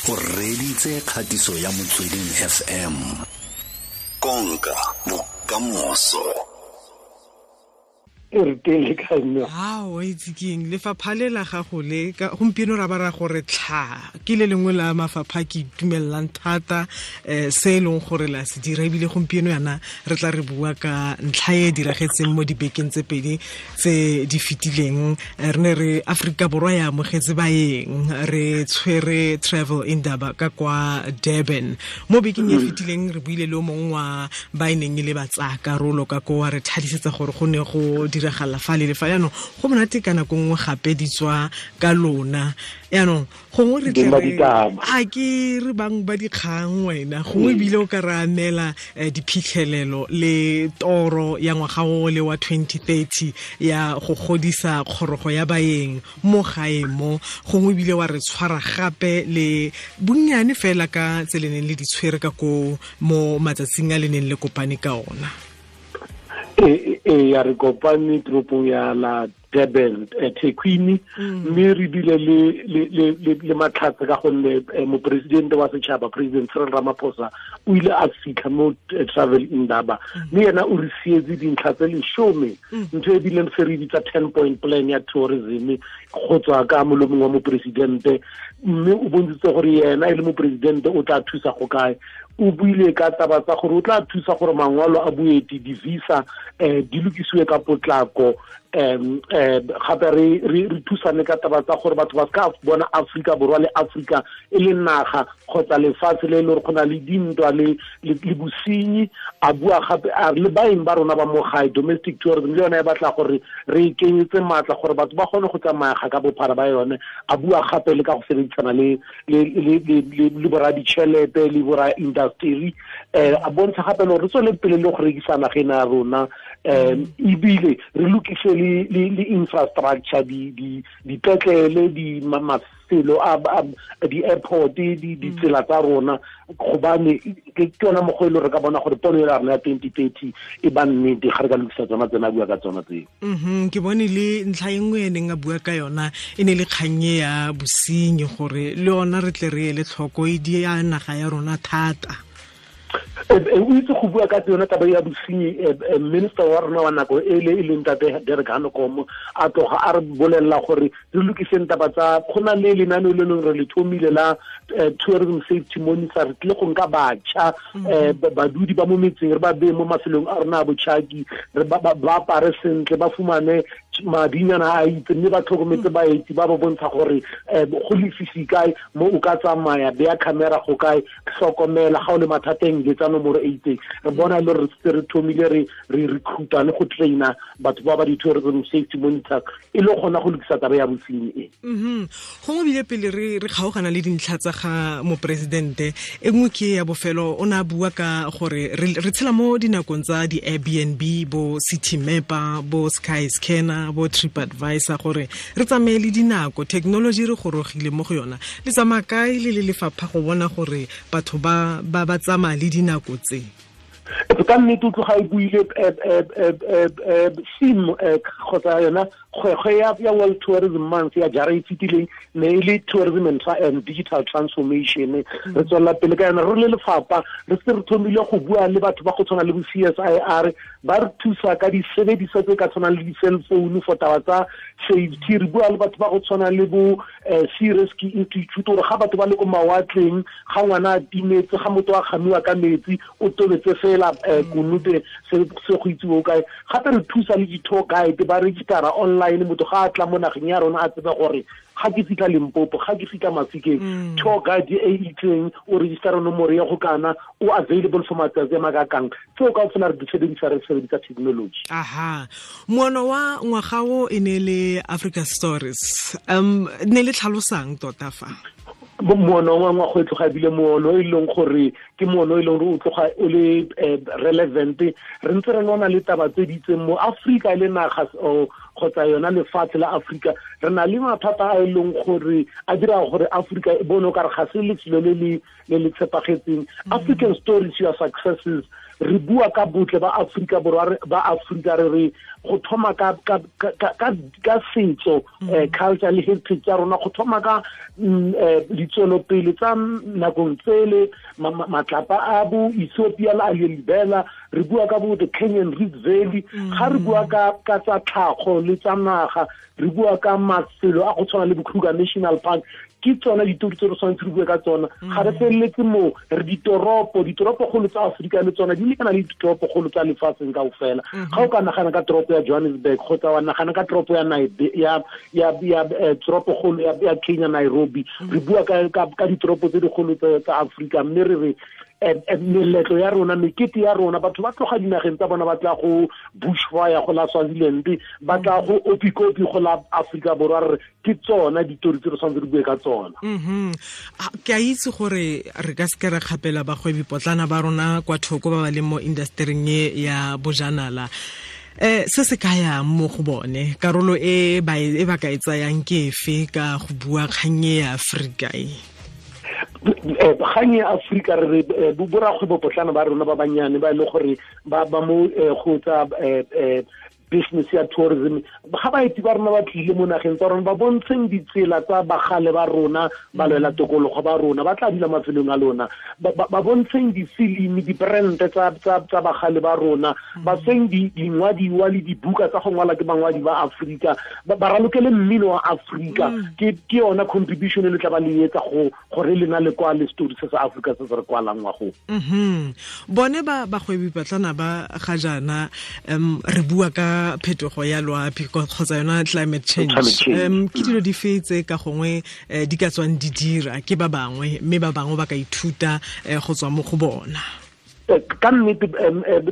O reditse kgatiso ya Motsweding FM. Konka bokamoso. E re teng le kae mme? Ao, itse keng, lefapha le la gago le gompieno ra ba ra gore tlha ke le lengwe la mafapha ke itumelelang thata se e leng gore la se dira, ebile gompieno yana re tla re bua ka ntlha e diragetseng mo dibekeng tse pedi tse di fetileng. Re ne re Aforika Borwa ya amogetse baeng, re tshwere Travel Indaba ka kwa Durban mo bekeng e fetileng. Re buile le o mongwe wa ba e neng e le batsaya karolo ka ko, wa re thadisetsa gore go ne go diragala fa le le fa. Yaanong go monate ka nako nngwe gape di tswa ka lona. Yaanong gongwe re tle a ke re bang ba dikgang, wena gongwe ebile o ka re amela diphitlhelelo le toro ya ngwaga o le wa 2030 ya go godisa kgorogo ya baeng mo gae mo, gongwe ebile wa re tshwara gape le bonnyane fela ka tse le neng le di tshwere ka ko mo matsatsing a le neng le kopane ka ona. E ya, re kopane toropong ya la Durban, Thekwini, mme re bile le matlhatse ka gonne mopresidente wa setšhaba, President Cyril Ramaphosa, o ile a fitlha mo Travel Indaba, mme yena o re sietse dintlha tse 10, ntho e bileng se re bitsa 10 point plan ya tourism go tswa ka molomong wa mopresidente. Mme o bontshitse gore yena e le mopresidente o tla thusa go kae. O buile ka taba tsa gore o tla thusa gore mangwalo a boeti, di-visa, di lokisiwe ka potlako. um gape re thusane ka taba tsa gore batho ba ska bona Afrika Borwa le Afrika e le naga kgotsa lefatshe le e le gore go na le dintwa le bosenyi. A bua gape a re le baeng ba rona ba mo gae, domestic tourism, le yone e batla gore re e kenyetse maatla gore batho ba kgone go tsamaya ka bophara ba yone. A bua gape le ka go sebedisana le bora ditšhelete le bora industry. A bontsha gape le gore re tswele pele le go rekisa nageng ya rona, ebile re lokise le infrastructure, di dipetlele, di mafelo a di-airport, ditsela tsa rona, gobane ke yona mokgwa e le re ka bona gore pono ya rona ya 2030 e ba nnete ga re ka lokisa tsona tsena a bua ka tsona tseo. Ke bone le ntlha e nngwe e neng a bua ka yona e ne le kgannye ya bosenyi, gore le yona re tle re ele tlhoko, e di ya naga ya rona thata. O itse go bua ka yone taba ya bosenyi, minister wa rona wa nako e le e leng tate Derek Hanekom a tloga a re bolelela gore re lokiseng taba tsa go na le lenaneo le leng re le thomile la tourism safety monitor. Re tlile go nka batjha, badudi ba mo metseng, re ba beye mo mafelong a rona a botjhaki, re ba apare sentle, ba fumane madinyana a itse, mme ba tlhokometse baeti, ba ba bontsha gore go lefifi kae mo o ka tsamaya, beya camera go kae, hlokomela ga o le mathateng, letsa nomoro e itseng. Re bona le re setse re thomile re recruita le go traina batho ba ba di-tourism safety monitor e le gona go lokisa taba ya bosenyi e. Gongwe bile pele re kgaogana le dintlha tsa ga moporesidente, e nngwe ke ya bofelo, o ne a bua ka gore re tshela mo dinakong tsa di-Airbnb, bo City Mapper, bo Sky Scanner, bo Trip Advisor, gore re tsamaye le dinako, technology re gorogile mo go yona. Le tsamaya kae le le lefapha go bona gore batho ba tsamaya le dinako tse? Ka nnete, o tloga e buile theme kgotsa yona kgwekgwe ya World Tourism Month ya jara e fetileng ne e le tourism and digital transformation. Re tswelela pele ka yona. Re le lefapha re se re thomile go bua le batho ba go tshwana le bo CSIR, ba re thusa ka disebediswa tse ka tshwanang le di-cell phone for taba tsa safety. Re bua le batho ba go tshwana le bo Sea Rescue Institute gore ga batho ba le ko mawatleng, ga ngwana a timetse, ga motho a kgamiwa ka metsi, o tobetse fela konote se go itsiwe o kae. Gape re thusa le di-tour guide ba registera online, motho ga a tla mo nageng ya rona a tsebe gore ga ke fitlha Limpopo, ga ke fitlha Mafikeng, tour guide e itseng o registera nomoro ya go kana o available for matsatsi a makakang. Tseo ka fela re di sebedisa, re sebedisa technology. Aha, moono wa ngwaga o e ne le Africa Stories. Ne le tlhalosang tota fa? Moono wa ngwaga e tloga ebile moono e leng gore ke moono e leng gore o tloga o le relevant. Re ntse re lwana le taba tse di itseng mo Afrika e le naga kgotsa yona lefatshe la Afrika. Re na le mathata a e leng gore a dira gore Afrika e bone o kare ga se lefelo le le tshepagetseng. African stories, your successes. Re bua ka botle ba Afrika Borwa, ba Afrika, re re go thoma ka setso, culture le heritage ya rona, go thoma ka ditswelopele tsa nakong tsele, matlapa a bo Ethiopia le a Libela. Re bua ka bo the Kenyan Rift Valley. Ga re bua ka tsa tlhago le tsa naga, re bua ka mafelo a go tshwana le bo Kruger National Park. Ke tsona ditori tse re tshwanetse re bue ka tsona. Ga re feleletse moo, re ditoropokgolo tsa Aforika le tsona di lekana le ditoropokgolo tsa lefatsheng kaofela. Ga o ka nagana ka toropo ya Johannesburg kgotsa wa nagana ka toropo ya toropokgolo ya Kenya, Nairobi, re bua ka ditoropo tse dikgolo tsa Aforika. Mme re re meletlo ya rona, mekete ya rona, batho ba tloga dinageng tsa bona ba tla go bushfire go la Swaziland, ba tla go Opikopi go la Afrika Borwa. Re ke tsona ditori tse re tshwanetse re bue ka tsona. Ke a itse gore re ka seke re kgapela bagwebi potlana ba rona kwa thoko ba ba leng mo industering e ya bojanala. Se se kaya mo go bone, karolo e ba ka e tsayang ke efe ka go bua kgang e ya Afrika e? Kgang ya Afrika, re borakgwebo potlana ba rona ba banyane ba e le gore ba mo go tsa business ya tourism, ga baeti ba rona ba tlile mo nageng tsa rona, ba bontsheng ditsela tsa bagale ba rona, ba lwela tokologo ba rona, ba tla dula mafelong a lona, ba bontsheng difilimi, dibrand tsa bagale ba rona, ba feng dingwadiwa le dibuka tsa go ngwala ke bangwadi ba Afrika, ba ralokele mmino wa Afrika. Ke yona contribution e le tla ba le etsa go gore lena le kwa le story se sa Afrika se se re kwalang wa go. Bone ba bagwebi patlana ba ga jaana, re bua ka phetogo ya loapi kgotsa yona climate change. Ke dilo di fe tse ka gongwe di ka tswang di dira ke ba bangwe, mme ba bangwe ba ka ithuta go tswa mo go bona? Ka nnete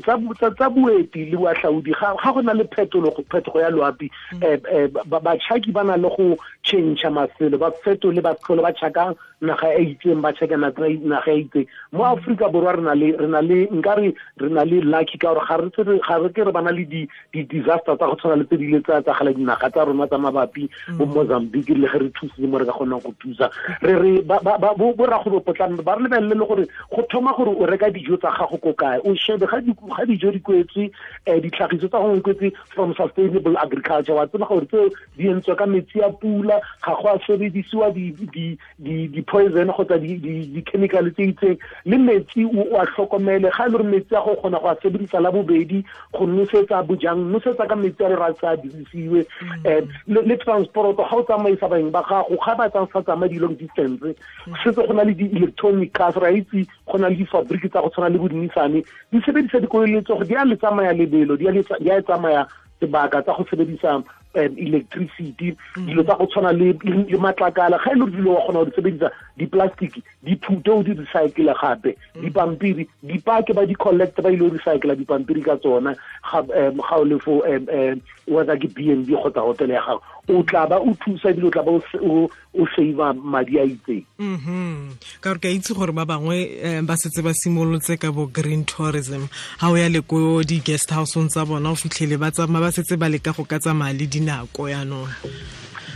tsa boeti le boahlaodi, ga go na le phetogo ya loapi, batšhaki ba na le go change mafelo, ba fetole, ba tlhole ba tšhaka naga e itseng, ba tšhaka naga e itseng. Mo Afrika Borwa re na le nkare re na le lucky ka gore ga re ke re bana le di-disaster tsa go tshwana le tse di ile tsa etsagala dinaga tsa rona tsa mabapi, bo Mozambique, le ge re thusitse mo re ka kgonang go thusa. Re re borakgwebo potlana ba re lebelele le gore go thoma gore o reka dijo tsa gago ko kae, o shebe ga dijo di kwetswe, ditlhagiso tsa gongwe kwetse from sustainable agriculture, wa tseba gore tseo di entswe ka metsi a pula, ga go a sebedisiwa di-poison kgotsa di-chemical tse itseng, le metsi o a tlhokomele. Ga e le gore metsi a go kgona go a sebedisa la bobedi go nosetsa bojang, nosetsa ka metsi a le ra sa dirisiwe. Le transport, ga o tsamaisa baeng ba gago, ga ba sa tsamaye di-long distance, setse go na le di-electronic cars, ra itse go na le difabriki tsa go tshwana le bo di-Nissan, di sebedisa dikoloi le tsogo, di a le tsamaya lebelo, di a tsamaya sebaka tsa go sebedisa electricity, dilo tsa go tshwana le matlakala. Ga e le dilo wa kgona go di sebedisa, di-plastic di phute o di recycle gape, dipampiri dipake ba di-collect ba ile go recycla dipampiri ka tsona. Ga o le fo whether ke B&B kgotsa hotel ya gago, o tla ba o thusa ebile o tla ba o save madi a itseng. Ka gore ke a itse gore ba bangwe ba setse ba simolotse ka bo green tourism. Ha o ya le ko di-guest house-ong tsa bona, o fitlhele ba tsamaya ba setse ba leka go ka tsamaya le dinako yaanong.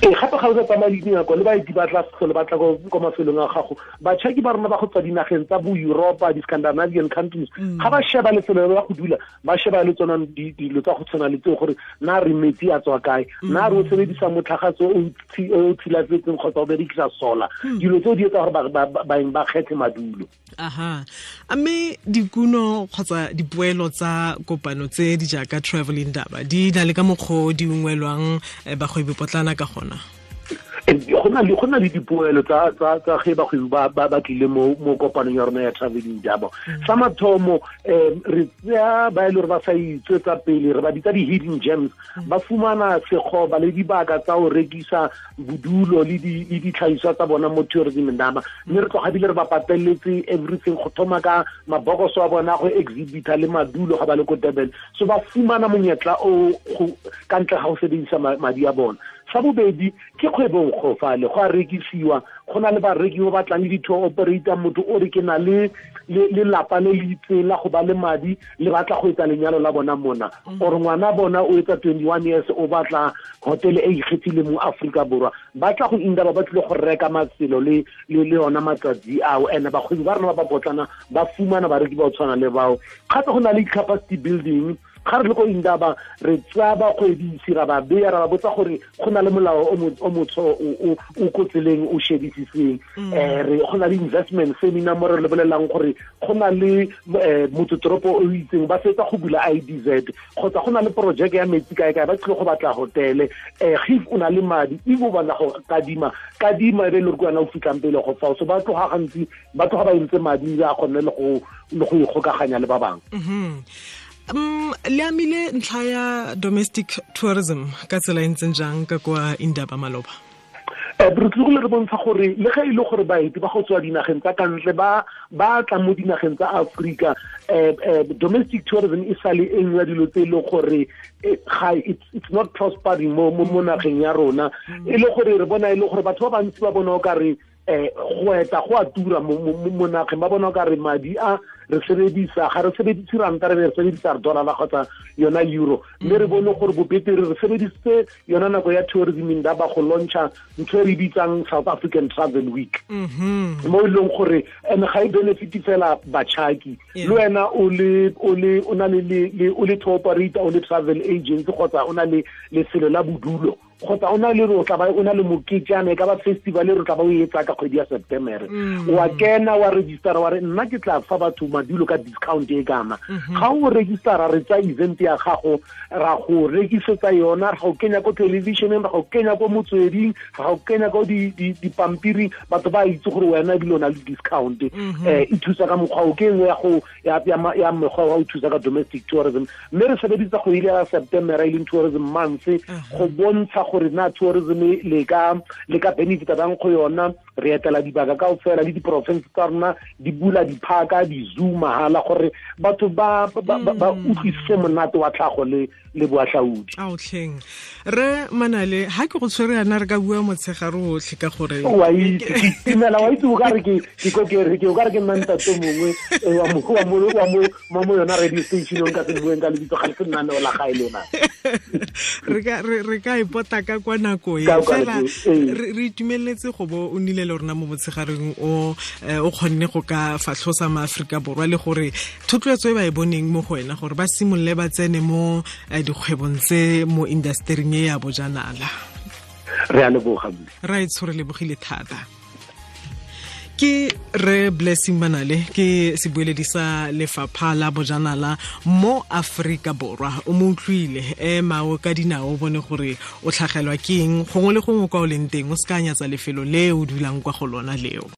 Ee, gape ga o sa tsamaya le dinako, le baeti ba tla tlhole ba tla ko mafelong a gago. Batšhaki ba rona ba go tswa dinageng tsa bo Europa, di-Scandinavian countries, ga ba sheba lefelo la go dula, ba sheba le tsona dilo tsa go tshwana le tseo, gore na re metsi a tswa kae, na re o sebedisa motlhagatso o tshilafetseng kgotsa o berekisa solar. Dilo tseo di etsa gore baeng ba kgethe madulo. Aha. A mme dikuno kgotsa dipoelo tsa kopano tse di jaaka Travel Indaba di na le ka mokgwa o di ungwelwang bagwebi potlana ka gona? Go na le dipoelo tsa ge bagwebi ba tlile mo kopanong ya rona ya Travel Indaba. Sa mathomo, re tseya ba e le gore ba sa itswetsa pele, re ba bitsa di-hidden gems, ba fumana sekgoba le dibaka tsa go rekisa bodulo le ditlhagiswa tsa bona mo Tourism Indaba. Mme re tloga bile re ba pateletse everything, go thoma ka mabokoso a bona go exhibita le madulo ga ba le ko Durban. So ba fumana monyetla o ka ntle ga go sebedisa madi a bona. Sa bobedi ke kgwebong go fale, go a rekisiwa, Go na le bareki ba batlang le di-tour operator, motho o re ke na le lelapa le le itseng la go ba le madi le batla go etsa lenyalo la bona mona, or ngwana bona o etsa 21 years o batla hotel e ikgethileng mo Aforika Borwa, ba tla go Indaba ba tlile go reka mafelo le yona matsatsi ao. And bakgwebi ba rona ba ba potlana ba fumana bareki ba o tshwana le bao. Gape go na le capacity building. Ga re le ko Indaba re tsaya bakgwebisi ra ba beya, ra ba botsa gore go na le molao o motsho o ko tseleng o shebisiseng. Re go na le investment seminar mo re lebelelang gore go na le motsetoropo o itseng ba fetsa go bula IDZ, kgotsa go na le project ya metsi kae kae, ba tlile go batla hotele. If o na le madi, if o batla go kadima e be le gore ke wena o fitlhang pele go fao. So ba tloga gantsi ba tloga ba entse madi a kgonne le go ikgokaganya le ba bangwe. Le amile ntlha ya domestic tourism ka tsela e ntseng jang ka kwa Indaba maloba? Re tlogile re bontsha gore le ge e le gore baeti ba go tswa dinageng tsa kantle ba tla mo dinageng tsa Afrika, domestic tourism e sale e nngwe ya dilo tse e leng gore it's not prospering mo nageng ya rona. E le gore re bona e le gore batho ba bantsi ba bona o ka re go eta go a tura mo nageng, ba bona o ka re madi a re sebedisa ga re sebedise ranta, re be re sebedisa dollar kgotsa yona euro. Mme re bone gore bobetere re sebedisitse yona nako ya tourism Indaba go launcha ntho e re bitsang South African Travel Week, mo e leng gore and ga e benefit fela batšhaki, le wena o na le tour operator, o le travel agent, kgotsa o na le lefelo la bodulo, kgotsa o na le o tla ba o na le moketjana, e ka ba festival e re tla ba o etsa ka kgwedi ya September, wa kena wa registera wa re nna ke tla fa batho madulo ka discount e kana. Ga o registera re tsa event ya gago, ra go rekisetsa yona, ra go kenya ko televisioneng, ra go kenya ko motsweding, ra go kenya ko dipampiring, batho ba itse gore wena ebile o na le discount. E thusa ka mokgwa o ke nngwe ya mekgwa wa go thusa ka domestic tourism. Mme re sebedisa kgwedi ya September e leng tourism month go bontsha gore na tourism le ka benefita bang go yona. Re etela dibaka kaofela le diporofense tsa rona di bula diphaka, di-zoo mahala, gore batho ba utlwisise monate wa tlhago le boatlhaodi. Aotlheng re Manale, ha ke go tshwere yana re ka bua motshegare otlhe ka gore wa itse ke itumela, wa itse o ka re ke o ka re ke nna ntate mongwe wa mo yona radio station o nka se bueng ka lebitso, ga le se lenaneo la gae lona. Re ka ipota ka kwa nako e fela re itumeletse go bo o nile le rona mo motshegareng o kgonne go ka fatlhosa maAforika Borwa le gore thotloetso e ba e boneng mo go wena gore ba simolole ba tsene mo dikgwebong tse mo industering e ya bojanala. Re a leboga. Ra e tshwere lebogile thata. Ke re Blessing Manale, ke sebueledi sa lefapha la bojanala mo Aforika Borwa. O mo utlwile, ema o ka dinao o bone gore o tlhagelwa ke eng gongwe le gongwe kwa o leng teng, o se ka nyatsa lefelo le o dulang kwa go lona leo.